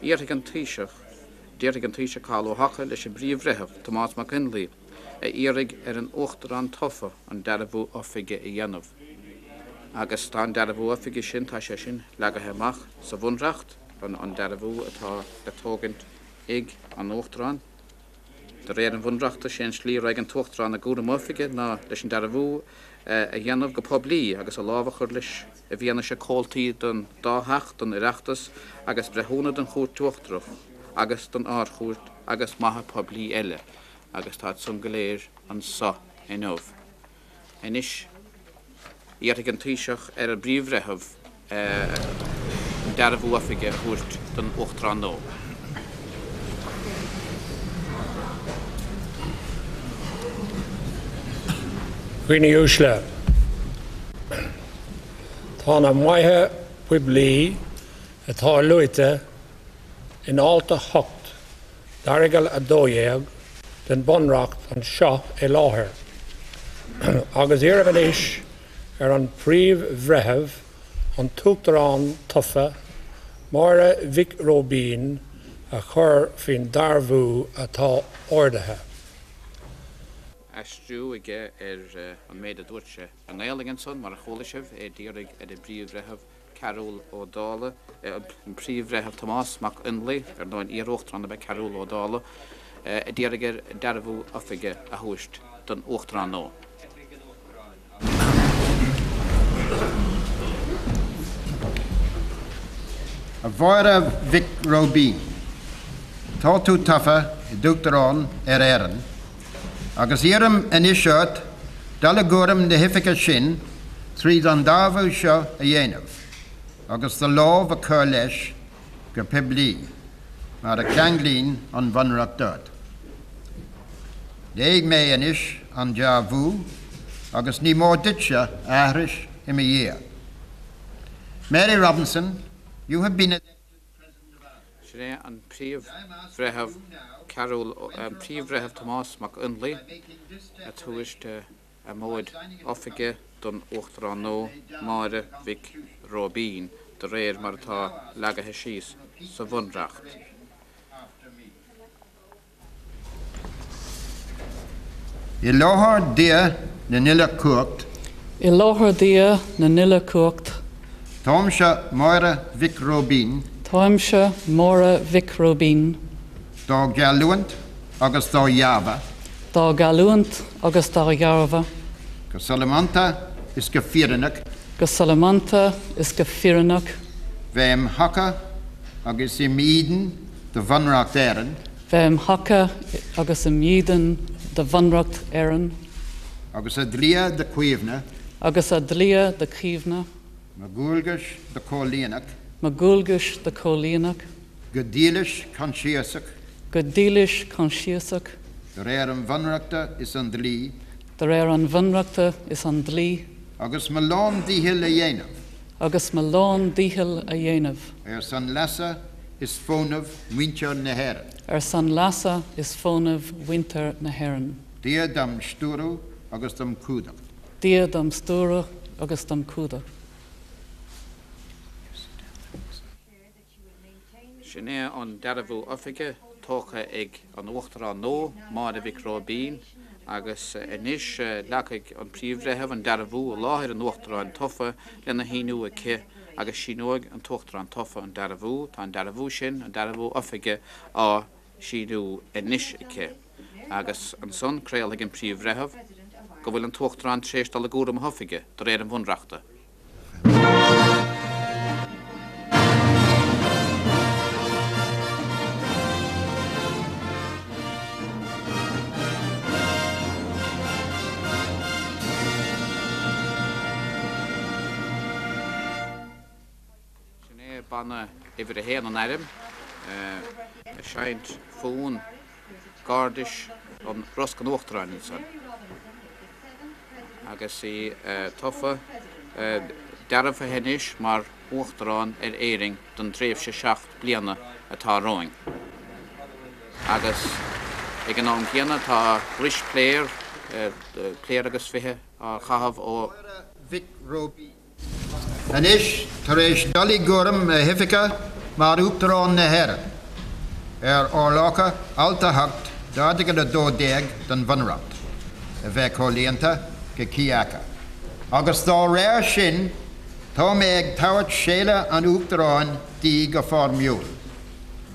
Iarrfaidh an Taoiseach, déarfaidh an Taoiseach Cathal Ó hEochaidh leis an bPríomh-Bhreitheamh, Tomás Mac Fhionnlaoich, a iarraidh ar an Uachtarán tofa an dearbhú oifige a dhéanamh. Agus tá an dearbhú oifige sin, tá sé sin leagaithe amach sa Bhunreacht, an dearbhú atá le tógaint ag an Uachtarán. De réir an Bhunreachta, sé an slí a raghaidh an tUachtarán i gcúram a oifige ná leis an dearbhú a dhéanamh go poiblí agus a lámh a chur leis i bhfianaise comhaltaí den dá theach den Oireachtas agus breithiúna den Chúirt Uachtarach agus den Ard-Chúirt agus maithe poiblí eile agus táid san go léir anso inniu. Anois, iarrfaidh an Taoiseach ar an bPríomh-Bhreitheamh an dearbhú oifige a thabhairt don Uachtarán nua. A dhaoine uaisle, tá na maithe poiblí atá luaite in Alt 8 d'Aireagal 12 den Bhunreacht anseo i láthair agus iarraim anois ar an bPríomh-Bhreitheamh, an tUachtarán tofa, Máire Mhic Róibín, a chur faoin dearbhú atá ordaithe. Aistriú aige ar an méid a dúirt sé i nGaelainn ansan, mar a chuala sibh, é d'iarraidh ar an bPríomh-Bhreitheamh Cearbhall Ó Dálaigh, an Príomh-Bhreitheamh Tomás Mac Fhionnlaoich, ar ndóigh an iar-Uachtarán ab ea Cearbhall Ó Dálaigh, a d'iarraidh air dearbhú oifige a thabhairt don Uachtarán nua. A Mháire Mhic Róibín, tá tú tofa i d'Uachtarán ar Éirinn agus iarraim anois ort dul i gcúram na hoifige sin tríd an dearbhú seo a dhéanamh agus do lámh a chur leis go poiblí, mar a cheanglaíonn an Bhunreacht ort. Léifidh mé anois an dearbhú agus ní mór duitse a aithris i mo dhiaidh. Mary Robinson, you have been elected President of Ireland. Sin é an Príomh-Bhreitheamh Cearbhall, an Príomh-Bhreitheamh Tomás Mac Fhionnlaoich ag tabhairt a mhóid oifige don Uachtarán nua, Máire Mhic Róibín, de réir mar atá leagaithe síos sa Bhunreacht. I láthair Dia na n-uile chumhacht. I láthair Dia na n-uile chumhacht. Táimse Máire Mhic Róibín. Táimse Máire Mhic Róibín. Dá gheallúint agus dá dhearbhadh. Dá gheallúint agus dá dhearbhadh. Go solamanta is go fírinneach. Go solamanta is go fírinneach. Bheith im thaca agus im dhídean do Bhunreacht Éireann. Bheith im thaca agus im dhídean do Bhunreacht Éireann. Agus a dlíthe do chaomhnadh. Agus a dlíthe do chaomhnadh. Mo dhualgais do chomhlíonadh. Mo dhualgais do chomhlíonadh. Go dílis coinsiasach. Go dílis coinsiasach. De réir an Bhunreachta is an dlí. De réir an Bhunreachta is an dlí. Agus mo lán-dícheall a dhéanamh. Agus mo lán-dícheall a dhéanamh. Ar son leasa is fónamh mhuintir na hÉireann. Ar son leasa is fónamh mhuintir na hÉireann. Dia dom stiúradh agus dom chumhdach. Dia dom stiúradh agus dom chumhdach. Sin é an dearbhú oifige tógtha ag an Uachtarán nua, Máire Mhic Róibín, agus anois leagfaidh an Príomh-Bhreitheamh an dearbhú i láthair an Uachtaráin tofa lena shíniú aici agus síneoidh an tUachtarán tofa an dearbhú. Tá an dearbhú sin, an dearbhú oifige, á shíniú anois aici. Agus ansan craolfaidh an Príomh-Bhreitheamh go bhfuil an tUachtarán tar éis dul i gcúram a hoifige de réir an Bhunreachta. Sin é banna uimhir a haon an airm ag seinnt fonn gairdis an Rosc an Uachtaráin ansan agus í tofa, dearbhaithe anois mar Uachtarán ar Éirinn don dtréimhse 7 bliana atá romhainn. Agus ag an am céanna tá rois pléar, pléar agus 20 á chaitheamh ó. Máire Mhic Róibín. Anois, tar éis dul i gcúram a hoifige mar Uachtarán na hÉireann. ar fhorálacha Alt 8 d'Airteagal 12 den Bhunreacht a bheith comhlíonta go cuí acu, agus dá réir sin tá mé ag tabhairt séala an Uachtaráin di go foirmiúil.